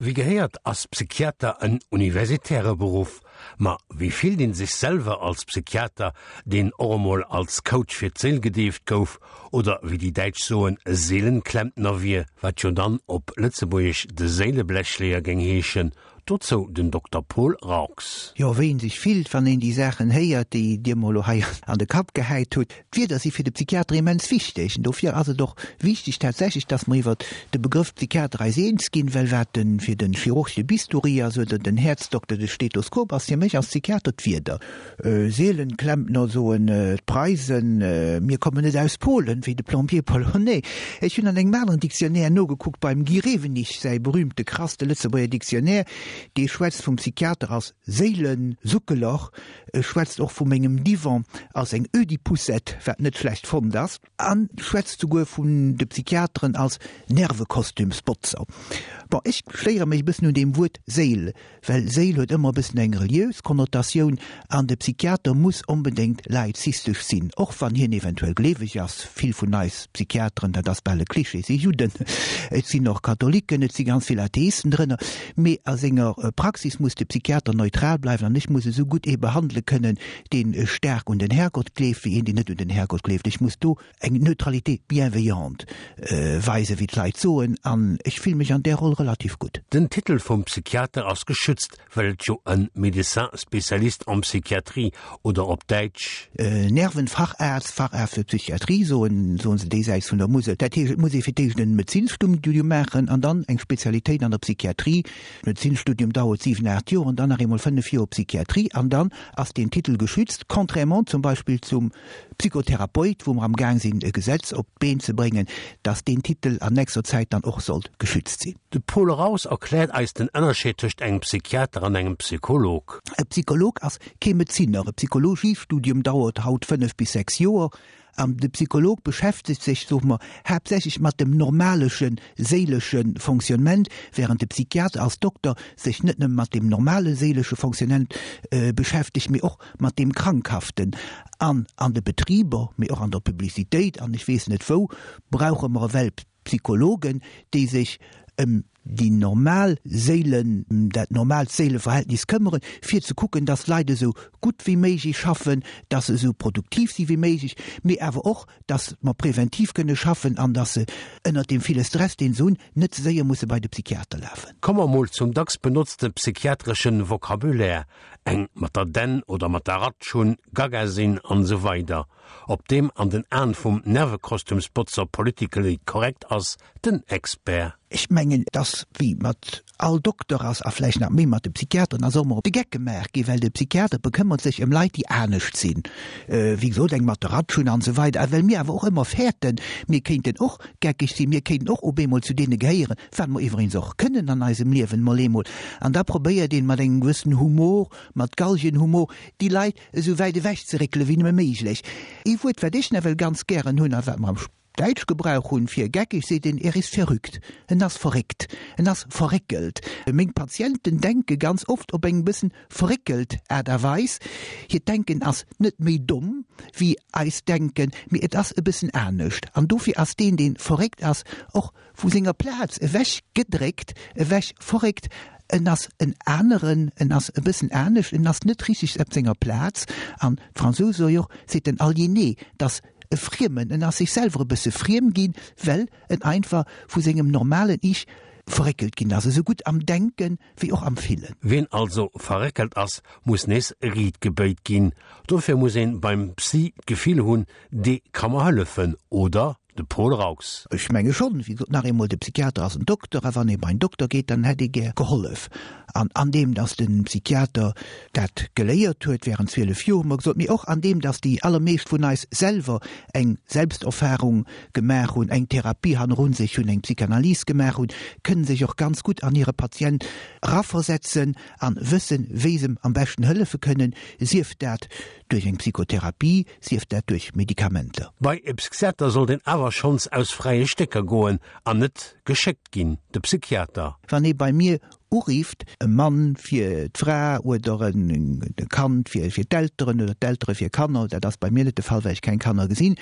Wéi gehéiert ass Psychiater en universitäre Beruff. Ma wéi fillt een sech selwer als Psychiater, deen och emol als Coach fir d'Séil gedeeft gouf, oder wéi déi Däitsch soen, Seelenklempner wier, wat jo dann op Lëtzebuergesch de Séileblechleeër géing heeschen? Dozou den Dokter Paul Raux. Jo, wéi een sech fillt, wann een déi Saachen héiert, déi Dir mer elo hei an de Kapp gehäit hutt. D'Wierder si fir de Psychiater immens wichteg. An dofir ass et och wichteg tatsächlech, dass mer iwwert de Begrëff Psychiater eis eens ginn, well wat de fir de Chirurg de Bistouri ass oder den Häerzdokter de Stethoskop, ass fir mech als Psychiater d'Wierder. Seelenklempner soen d'Preisen, mir kommen net aus Polen, wéi de Plombier polonais. Ech hunn an engem aneren Dictionnaire nogekuckt, beim Guy Rewenig säi berühmte krass, de Lëtzebuerger Dictionnaire, dee schwätzt vum Psychiater als Séilensuckeler, e schwätzt och vu mengem Divan als eng Ödipoussette, wat net schlecht fonnt ass, a schwätzt souguer vun de Psychiateren als Nervekostümsbotzer. Bon, ech stéiere mech e bëssen un deem Wuert Séil, Well Séil huet ëmmer e bëssen eng reliös Konnotatioun an de Psychiater muss onbedéngt laizistesch sinn, och wann hien eventuell gleeweg ass. Vill vun eis Psychiateren, dat ass bal e Klischee, si Judden, et sinn och Katholiken, et si ganz vill Atheisten drënner, mee a senger Praxis muss de Psychiater neutral bleiwen an ech muss esou gutt ee behandele kënnen, dee staark un den Herrgott gleeft, wéi een, deen net un den Herrgott gleeft. Ech muss do eng Neutralité bienveillante weisen, wéi d'Leit soen, an ech fille mech an där Roll relativ gutt. Den Titel vum Psychiater ass geschützt, well et jo en Médecin spécialiste en psychiatrie oder op Däitsch. Nervenfacharzt, Facharzt für Psychiatrie soen, soen se déisäits vun der Musel. Dat heescht, et muss ee fir d'éischt en Medezinsstudium maachen an dann eng Spezialitéit an der Psychiatrie. Medezinsstudium dauert 7, 8 Joer an dann nach eemol 5 Joer Psychiatrie an dann ass deen Titel geschützt, contrairement zum Beispill zum Psychotherapeut, wou mer am Gaang sinn e Gesetz op d'Been ze bréngen, dass deen Titel an nächster Zäit dann och sollt geschützt sinn. De Paul Raus erkläert eis den Ënnerscheed tëscht engem Psychiater an engem Psycholog. E Psycholog ass kee Medezinner. E Psychologiestudium dauert haut 5 bis 6 Joer an de Psycholog beschäftegt sech, soe mer, haaptsächlech mat dem normaleschen séilesche Fonctionnement, während de Psychiater als Dokter sech net nëmme mat dem normale séilesche Fonctionnement beschäftegt, mee och mat deem Krankhaften. An an de Betriber, mee och an der Publicitéit an ech weess net wou, brauche mer ewell Psychologen, déi sech ëm déi normal Séilen, dat normaalt Séileverhältnis këmmeren, fir ze kucken, dass d'Leit esou gutt wéi méiglech schaffen, dass se esou produktiv si wéi méiglech, mee awer och, dass mer präventiv kënne schaffen an dass se ënnert deem ville Stress, deen se hunn, net ze séier musse bei de Psychiater lafen. Komme mer mol zum dacks benotzte psychiatreschen Vocabulaire, eng mat der Dänn oder mat der Ratsch hunn, gaga sinn an esou weider Ob deem an den Aen vum Nervekostümsbotzer politically correct ass, den Expert. Ech mengen, dass, wéi mat all Dokter ass, a vläicht nach méi mat de Psychiateren, ass och emol op de Geck gemaach ginn, well de Psychiater bekëmmert sech ëm Leit, déi anescht sinn, wéi gesot, eng mat der Ratsch hunn an esou weider. A well mir awer och ëmmer fäerten, mir kéinten och geckeg sinn, mir kéinten och op eemol zu deene gehéieren, wat mer iwweregens och kënnen an eisem Liewen mol eemol, an da probéiert een mat engem gewëssenen Humor, mat Galgenhumor, déi Leit esou wäit ewech ze réckele wéi nëmme méiglech. Ee Wuert, wat ech nawell ganz gären hunn a wat mer am Däitsch Gebrauch hunn fir geckeg, seet een, er ist verrückt, en ass verréckt, en ass verréckelt. Meng Patienten denke ganz oft op eng bëssen verréckelt Aart a Weis. Hiert Denken ass net méi domm wéi eist Denken, mee et ass e bëssen anescht. An dofir ass deen, dee verréckt ass, och vu senger Plaz ewech gedréckt, ewech verréckt. En ass en aneren, en ass e bëssen anescht, en ass net richteg op senger Plaz. An d'Fransous soe jo och, c'est un aliéné, dass e Friemen, en ass sech selwer e bësse friem ginn, well en einfach vu sengem normalen Ich verréckelt ginn ass, esou gutt am Denken wéi och am Fillen. Ween also verréckelt ass, muss nees riit gebéit ginn. Dofir muss een beim Psy d'Gefill hunn, dee ka mer hëllefen, oder? De Paul Raux. Ech menge schonn. Wéi gesot, nach eemol, de Psychiater ass en Dokter, a wann ee bei en Dokter geet, dann hätt ee gär gehollef. An andeem datt de Psychiater dat geléiert huet während 12 Joer, hu mer gesot, mee och andeem datt déi allermeescht vun eis selwer eng Selbsterfahrung gemaach hunn, eng Therapie hannerun sech hunn, eng Psychanalyse gemaach hunn, kënnen sech och ganz gutt an hire Patient eraversetzen an wëssen, wéi se em am beschten hëllefe kënnen, sief dat duerch eng Psychotherapie, sief dat duerch Medikamenter. Bei e Psychiater sollt een awer schonns aus fräie Stécker goen an net geschéckt ginn, de Psychiater. Wann ee bei mir. Urifft, e Mann fir d'Fra oder e Kand fir d'Elteren oder d'Eltere fir Kanner, dat ass bei mir net de Fall, well ech keng Kanner gesinn,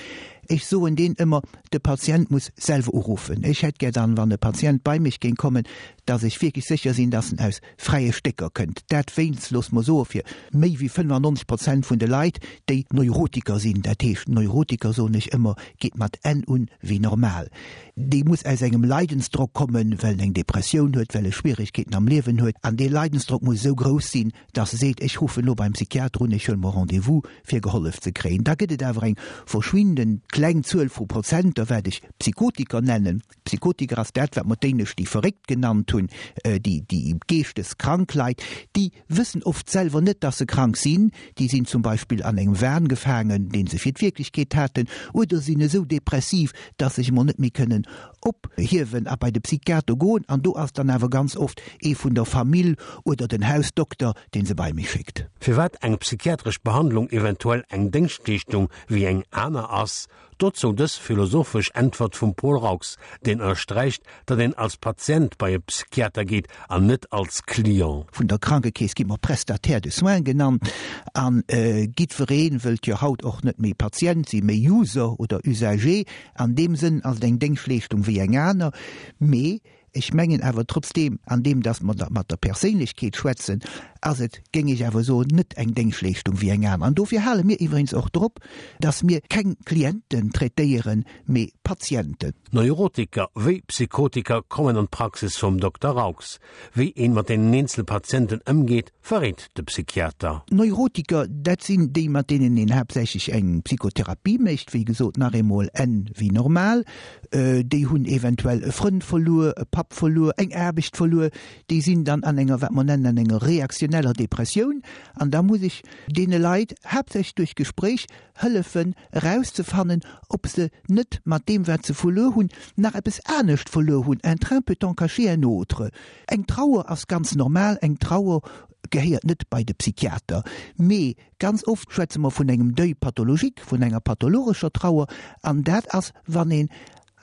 ech soen deen ëmmer, de Patient muss selwer uruffen. Ech hätt gär dann, wann e Patient bei mech géing kommen, dass ech wierklech sécher sinn, dass en aus fräie Stécker kënnt. Dat wéinst, loosse mer soe fir méi wéi 95 Prozent vun de Leit, déi Neurotiker sinn, dat heescht Neurotiker, soen ech ëmmer, geet mat N un wéi normal. Dee muss aus engem Leidensdrock kommen, well en eng Depressioun huet, well e Schwieregkeeten am Liewen huet. An dee Leidensdrock muss esou grouss sinn, dass e seet, ech ruffen elo beim Psychiater un, ech huele mer Rendez-vous, fir gehollef ze kréien. Da gëtt et awer eng verschwindend kleng Zuel vu Prozenter, wat ech Psychotiker nennen. Psychotiker ass dat, wat mer d'éinescht déi Verréckt genannt hunn, déi geeschteskrank Leit, déi wëssen oft selwer net, dass se krank sinn, déi sinn zum Beispill an engem Wahn gefaangen, dee se fir d'Wierklechkeet haten, oder sinn esou depressiv, dass se sech emol net méi kënnen ophiewen a bei de Psychiater goen. An do ass dann awer ganz oft ee vun der Famill oder den Hausdokter, dee se bei mech schéckt. Firwat eng psychiatresch Behandlung eventuell eng Déngschtleeschtung wéi eng aner ass, Dozou dës philosophesch Äntwert vum Paul Raux, deen ënnersträicht, datt een als Patient bei e Psychiater geet an net als Client. Vun der Krankekeess gi mer Prestataire de soins genannt an giddweree wëllt jo haut och net méi Patient sinn, mee User oder Usager. An deem Sënn ass et eng Déngschtleeschtung wéi eng aner, mee Ech mengen awer trotzdeem, an deem datt mer da mat der Perséinlechkeet schwätzen, ass et, géing ech awer soen, net eng Déngschtleeschtung wéi eng aner. An dofir hale mir iwweregens och drop, datt mir keng Klienten traitéieren, mee Patienten. Neurotiker wéi Psychotiker kommen an d'Praxis vum Dokter Raux. Wéi een mat deenen eenzele Patienten ëmgeet, verréit de Psychiater. Neurotiker, dat sinn déi, mat deenen een haaptsächlech eng Psychotherapie mécht, wéi gesot, nach eemol N wéi normal. Déi hunn eventuell e Frënd verluer, e Papp verluer, eng Aarbecht verluer. Déi sinn dann an enger, wat mer nennen, an enger reaktioneller Depressioun. An da muss ech deene Leit haaptsächlech duerch Gespréich hëllefen erauszefannen, ob se net mat deem, wat se verluer hunn, nach eppes anescht verluer hunn, un train peut en cacher un autre. Eng Trauer ass ganz normal, eng Trauer gehéiert net bei de Psychiater. Mee ganz oft schwätze mer vun engem Deuil pathologique, vun enger pathologescher Trauer, an dat ass, wann een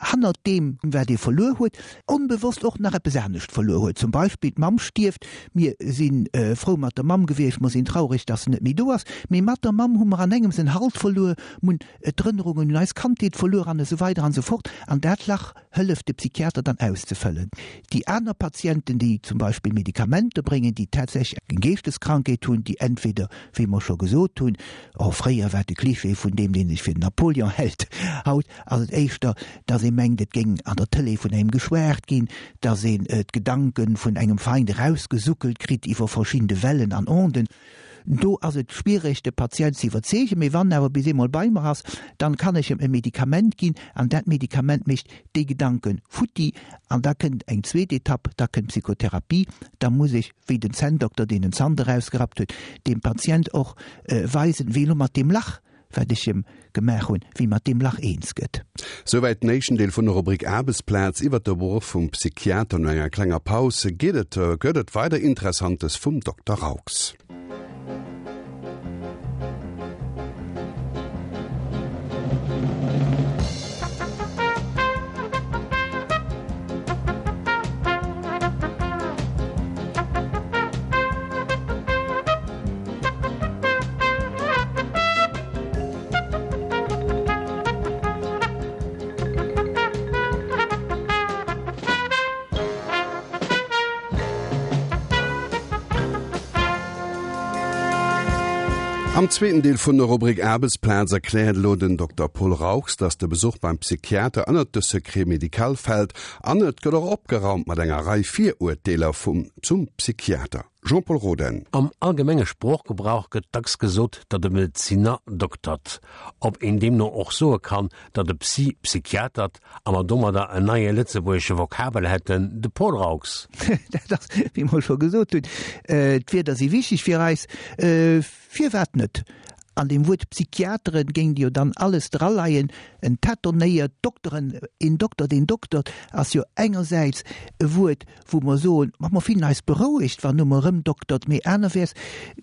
hannert deem, wat ee verluer huet, onbewosst och nach eppes anescht verluer huet. Zum Beispill, d'Mamm stierft, mir si frou mat der Mamm gewiescht, mer sinn traureg, dass se net méi do ass, mee mat der Mamm hu mer an engems en Halt verluer, mer hunn d'Erënnerungen un eis Kandheet verluer an esou weider an esou fort. An dat Lach hëlleft de Psychiater dann auszefëllen. Déi aner Patienten, déi zum Beispill Medikamenter bréngen, déi tatsächlech eng Geeschteskrankheet hunn, déi entweder, wéi mer scho gesot hunn, oh fréier war de Klischee vun deem, dee sech fir den Napoleon hält, haut ass et éischter, dass ee mengt, et géing an der Tëlee vun engem geschwat ginn, dass een d'Gedanke vun engem Feind erausgesuckelt kritt iwwer verschidde Wellen an Onden. Do ass et schwiereg de Patient ze iwwerzeegen, mee wann en awer bis eemol bei mer ass, dann kann ech em e Medikament ginn an dat Medikament mécht déi Gedanken futti an da kënnt eng zweet Etapp, da kënnt d'Psychotherapie, da muss ech, wéi den Zänndokter deen en Zant erausgerappt huet, dem Patient och weisen, wéi elo mat deem Lach wat ech em gemaach hunn, wéi mat deem Lach eens gëtt. Souwäit den éischten Deel vun der Rubrik Aarbechtsplaz iwwert de Beruff vum Psychiater. No enger klenger Paus geet et gëtt et weider Interessantes vum Dokter Raux. Am zweeten Deel vun der Rubrik Aarbechtsplaz erkläert elo den Dokter Paul Raux, dass de Besuch beim Psychiater ënnert de Secret médical fält an et gëtt och opgeraumt mat enger Rei Virurteeler vum zum Psychiater. Jean-Pol Roden. Am allgemenge Sproochgebrauch gëtt dacks gesot, datt e Medezinner doktert. Ob een deemno och soe kann, datt e Psy psychiatert a mer domadder en neie lëtzebuergesche Vokabel hätten, de Paul Raux. Dat ass, wéi mer scho gesot hunn, d'Wierder si wichteg fir eis. Firwat net? An deem Wuert Psychiateren géing jo dann alles draleien, en tâtonnéiert Dokteren, een Dokter, deen doktert, ass jo engersäits e Wuert, wou mer soen, ma mer fillen eis berouegt, wann no mer erëmdoktert, mee anerwäerts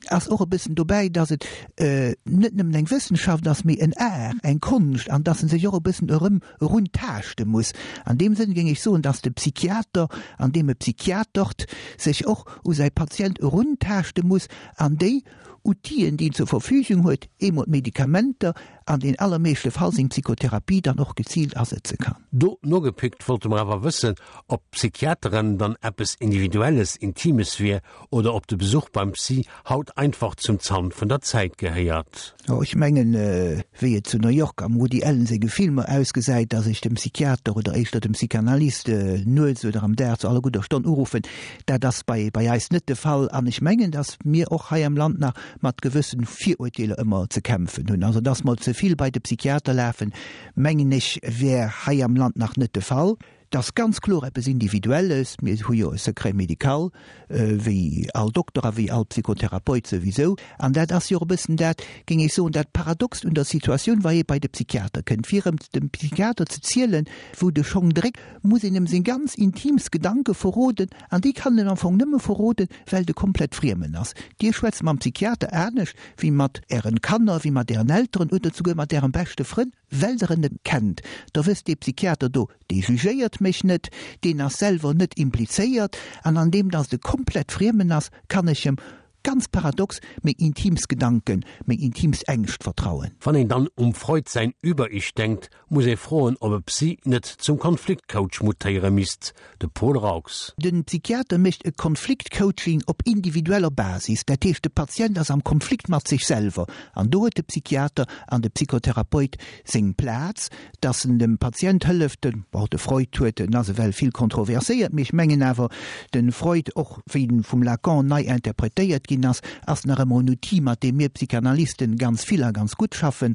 ass och e bëssen dobäi, dass et net nëmmen eng Wëssenschaft ass, mee en Art, eng Konscht, an dass en sech och e bëssen erëm eruntaaschte muss. An deem Sënn géing ech soen, dass de Psychiater, an deem e psychiatert, sech och u säi Patient eruntaaschte muss an déi Outile, déi en zur Verfügung huet, eemol d'Medikamenter, an den allermeeschte Fall seng Psychotherapie dann och geziilt asetze kann. Do nogepickt wollte mer awer wëssen, ob Psychiateren dann eppes Individuelles, Intimes wier oder ob de Besuch beim Psy haut einfach zum Zant vun der Zäit gehéiert. Jo, ech mengen, wéi et zu New York am Woody Allen senge Filmer ausgesäit, dass ech dem Psychiater oder éischter dem Psychanalyst nuets oder am Dag zu aller gudder Stonn uruffen, dat ass bei bei eis net de Fall. An ech mengen, dass mir och hei am Land nach mat gewëssen Viruerteeler ëmmer ze kämpfen hunn. Also dass mer ze vill bei de Psychiater lafen, mengen ech, wär hei am Land nach net de Fall. Et ass ganz kloer eppes Individuelles. Mir hu jo e Secret médical, wéi all Dokter a wéi all Psychotherapeut souwisou. An dat ass jo och e bëssen dat, géing ech soen, dat Paradoxt un der Situatioun, wa ee bei de Psychiater kënnt. Fir erëm dem Psychiater ze zielen, wou de Schong dréckt, muss een em seng ganz intiimst Gedanke verroden. An déi kann en am Fong nëmme verroden, well et e komplett Friemen ass. Dir schwätzt mam Psychiater anescht wéi mat Ären Kanner, wéi mat Ären Elteren oder souguer mat Ärem beschte Frënn, well Der en net kennt. Da wësst, dee Psychiater do, dee jugéiert mech net, deen ass selwer net implizéiert. An an deem, dass et e komplett Friemen ass, kann ech em, ganz paradox, meng intiimst Gedanken, meng intiimst Ängscht vertrauen. Wann een dann um Freud säin Über-Ich denkt, muss ee froen, ob e Psy net zum Konfliktcoach mutéiere misst, de Paul Raux. Den Psychiater mécht e Konfliktcoaching op individueller Basis, dat heescht de Patient ass am Konflikt mat sech selwer an do huet de Psychiater an de Psychotherapeut seng Plaz, dass en dem Patient hëlleft. De, bon, de Freud huet, en ass ewell vill kontroverséiert, mee ech mengen awer de Freud, och wéi en vum Lacan nei interpretéiert ginn ass, ass nach ëmmer en Outil, mat deem mir Psychanalysten ganz vill a ganz gutt schaffen.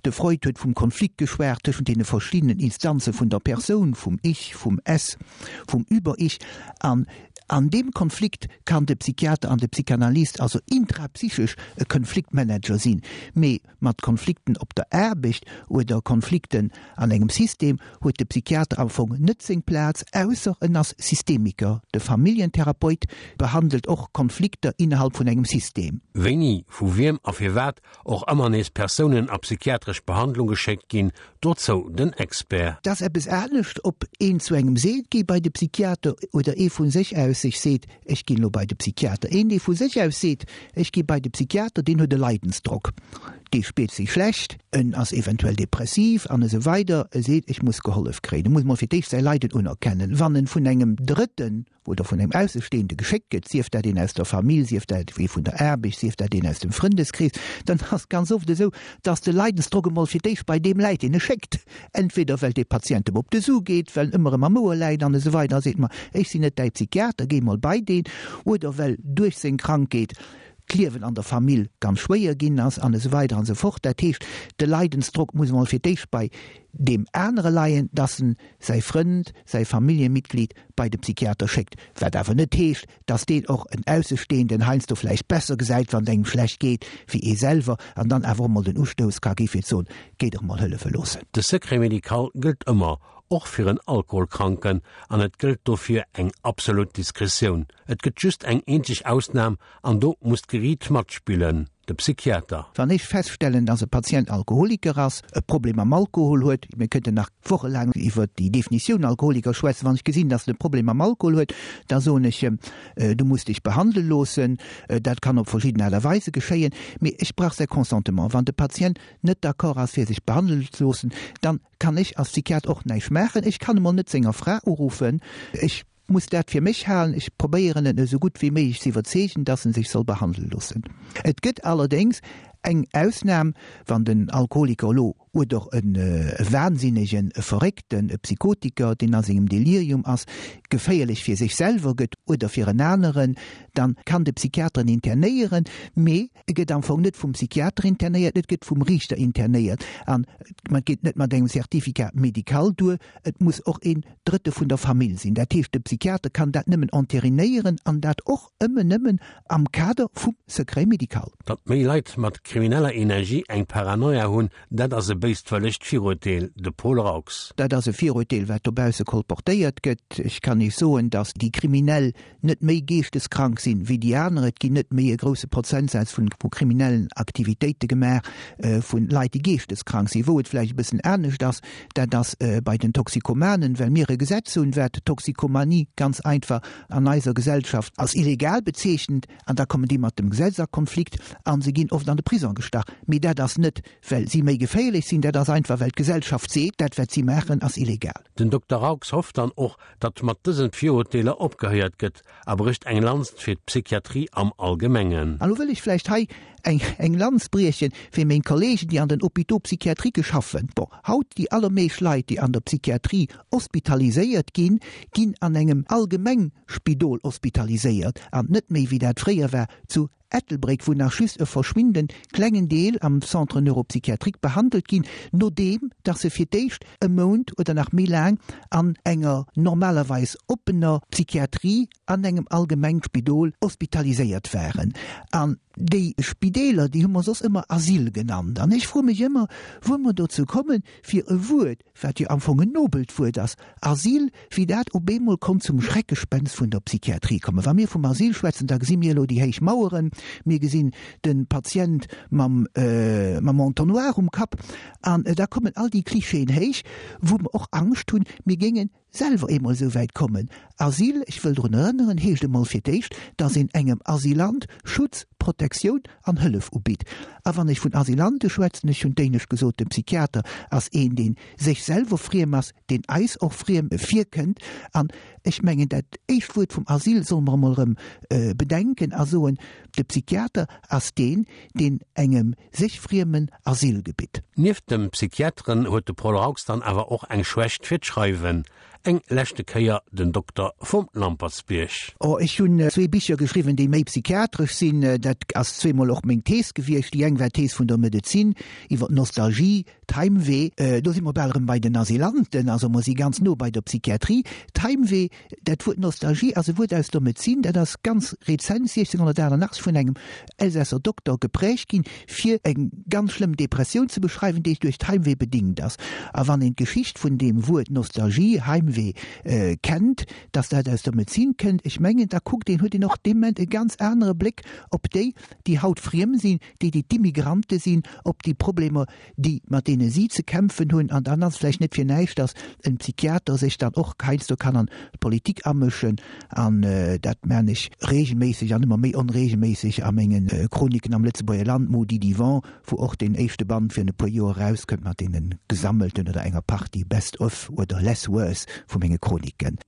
De Freud huet vum Konflikt geschwat tëschent deene verschiddenen Instanze vun der Persoun, vum Ich, vum Es, vum Über-Ich. An an deem Konflikt kann de Psychiater an de Psychanalyst also intrapsychesch e Konfliktmanager sinn. Mee mat Konflikten op der Aarbecht oder Konflikten an engem System huet de Psychiater am Fong net seng Plaz, ausser en ass Systemiker. De Familljentherapeut behandelt och Konflikter innerhalb vun engem System. Wéini, vu wiem a firwat och ëmmer nees Persounen a psychiatresch Behandlung geschéckt ginn, dozou den Expert. Et ass eppes anescht, ob een zu engem seet, géi bei de Psychiater oder ee vu sech aus sech seet, ech ginn elo bei de Psychiater. Een, dee vu sech aus seet, ech gi bei de Psychiater, deen huet e Leidensdrock, dee spiert sech schlecht, en ass eventuell depressiv an esou weider, e seet, ech muss gehollef kréien. E muss mol fir d'éischt säi Leiden unerkennen. Wann en vun engem Drëtten oder vun engem Aussestehende geschéckt gëtt, sief dat een aus der Famill, sief dat ee vun der Aarbecht, sief dat een aus dem Frëndeskrees, dann ass et ganz oft esou, dass de Leidensdrock emol fir d'éischt bei deem läit, deen e schéckt. Entweder well dee Patient em op de Su geet, well en ëmmer erëm am Ouer läit an esou weider a seet, ma ech sinn net däi Psychiater, géi mol bei deen, oder well duerch seng Krankheet d'Liewen an der Famill ganz schwéier ginn ass an esou weider an esou fort. Dat heescht, de Leidensdrock muss emol fir d'éischt bei deem anere leien, dass en säi Frënd, säi Familljemitglied bei de Psychiater schéckt, wat awer net heescht, dass deen och en Aussestehenden heiansdo vläicht besser gesäit, wann et engem schlecht geet, wéi ee selwer, an dann awer och mol den Ustouss ka gi fir ze soen, Géi dech mol hëllefe loossen. De Secret médical gëllt ëmmer, och fir en Alkoholkranken, an et gëllt dofir eng absolut Diskretioun. Et gëtt just eng eenzeg Ausnam, an do muss d'Geriit matspillen, de Psychiater. Wann ech feststellen, dass e Patient Alkoholiker ass, e Problem mam Alkohol huet, mir kënnten nach wochelaang iwwert déi Definitioun Alkoholiker schwätzen, wann ech gesinn, dass en e Problem mam Alkohol huet, da soen ech em, du muss dech behandele loossen. Dat kann op verschidden Aart a Weise geschéien, mee ech brauch säi Consentement. Wann de Patient net d'accord ass fir sech behandelen ze loossen, dann kann ech als Psychiater och näischt maachen. Ech kann emol net senger Fra uruffen. Ech muss dat fir mech halen. Ech probéieren en esou gutt wéi méiglech ze iwwerzeegen, dass en sech soll behandele loossen. Et gëtt allerdéngs eng Ausnam, wann den Alkoholiker elo oder e Wahnsinnegen, e Verréckten, e Psychotiker, deen a sengem Delirium ass, geféierlech fir sech selwer gëtt oder fir en aneren, dann kann de Psychiater en internéieren, mee e gëtt am Fong net vum Psychiater internéiert, et gëtt vum Riichter internéiert an et geet net mat engem Certificat médical duer, et muss och een Drëtte vun der Famill sinn. Dat heescht, de Psychiater kann dat nëmmen enterinéieren an dat och ëmmen nëmmen am Kader vum Secret médical. Datt méi Leit mat. krimineller Energie eng Paranoia hunn, dat ass e béiswëllegt Viruerteel. De Paul Raux. Dat ass e Viruerteel, wat dobausse kolportéiert gëtt. Ech kann Iech soen, datt déi Kriminell net méi geeschteskrank sinn wéi déi aner. Et ginn net méi e grousse Prozentsaz vun vu kriminellen Aktivitéite gemaach vun Leit, déi geeschteskrank sinn. Wou et vläicht e bëssen anescht ass, dat ass bei den Toxikomanen, well mir e Gesetz hunn, wat d'Toxikomanie ganz einfach an eiser Gesellschaft als illegal bezeechent. An da kommen déi mat dem Gesetz a Konflikt a se ginn oft an de Prisong gestach. Mee dat ass net, well si méi geféierlech sinn, dat ass einfach, well d'Gesellschaft seet, dat wat si maachen, ass illegal. Den Dokter Raux hofft dann och, datt mat dësen Viruerteeler opgehéiert gëtt a brécht eng Lanz fir d'Psychiatrie am Allgemengen. An elo wëll ech vläicht hei eng eng Lanz brieche fir meng Kollegen, déi an den Hôpitaux psychiatriques schaffen. Bon, haut déi allermeescht Leit, déi an der Psychiatrie hospitaliséiert ginn, ginn an engem Allgemengspidol hospitaliséiert an net méi, wéi dat fréier war, zu Ettelbréck, wou nach just e verschwindend klengen Deel am Centre neuropsychiatrique behandelt ginn, nodeem dass se fir d'éischt e Mount oder nach méi laang an enger normalerweis oppener Psychiatrie an engem Allgemengspidol hospitaliséiert waren. An déi Spideeler, déi hu mer soss ëmmer Asyl genannt. An ech froe mech ëmmer, wou mer dozou kommen, fir e Wuert, wat jo am Fong en nobelt Wuert ass, Asyl, wéi dat op eemol konnt zum Schreckgespenst vun der Psychiatrie kommen. Wa mir vum Asyl schwätzen, da gesi mir elo déi héich Maueren, mir gesinn de Patient mam, mam Entonnoir um Kapp an da kommen all déi Klischeeën héich, wou mer och Angscht hunn, mir géingen selwer eemol esou wäit kommen. Asyl, ech wëll drun erënneren, heescht emol fir d'éischt, dass een engem Asylant Schutz, Protektioun an Hëllef ubitt. A wann ech vun Asylante schwätzen, ech hunn d'éinescht gesot, de Psychiater ass een, dee sech selwer friem ass, deen eis och friem virkënnt. An ech mengen, dat éischt Wuert vum Asyl solle mer emol erëm bedenken a soen, de Psychiater ass deen, deen engem sech friemen Asyl gebitt. Nieft dem Psychiateren huet de Paul Raux dann awer och eng Schwächt fir d'Schreiwen. Eng leschte Kéier den Dokter vum Lampertsbierg. Oh, ech hunn zwee Bicher geschriwwen, déi méi psychiatresch sinn. Dat ass zweemol och meng Thees gewiescht. Déi eng war d'Thees vun der Medezin iwwer d'Nostalgie, d'Heimweh. Do si mer bal erëm bei den Asylanten, also mer si ganz no bei der Psychiatrie. D'Heimweh, dat Wuert Nostalgie ass e Wuert aus der Medezin, dat ass ganz rezent, 1688, vun engem Elsässer Dokter geprägt ginn, fir eng ganz schlëmm Depressioun ze beschreiwen, déi duerch d'Heimweh bedingt ass. A wann een d'Geschicht vun deem Wuert Nostalgie, Heimweh, kennt, dass dat aus der Medezin kënnt, ech mengen, da kuckt een, huet een och dee Moment e ganz anere Bléck op déi, déi haut friem sinn, déi, déi d'Immigrante sinn, op déi Problemer, déi mat deene si ze kämpfen hunn, an dann ass et vläicht net fir näischt, datt en Psychiater sech dann och heiansdo kann an d'Politik amëschen, an dat maan ech regelméisseg an ëmmer méi onregelméisseg a menge Chroniken am Lëtzebuerger Land, Maudit Yvon, wou och deen éischte Band virun e puer Joer erauskënnt mat deene gesammelten oder enger Partie Best of oder Less Worse vu menge Chroniken.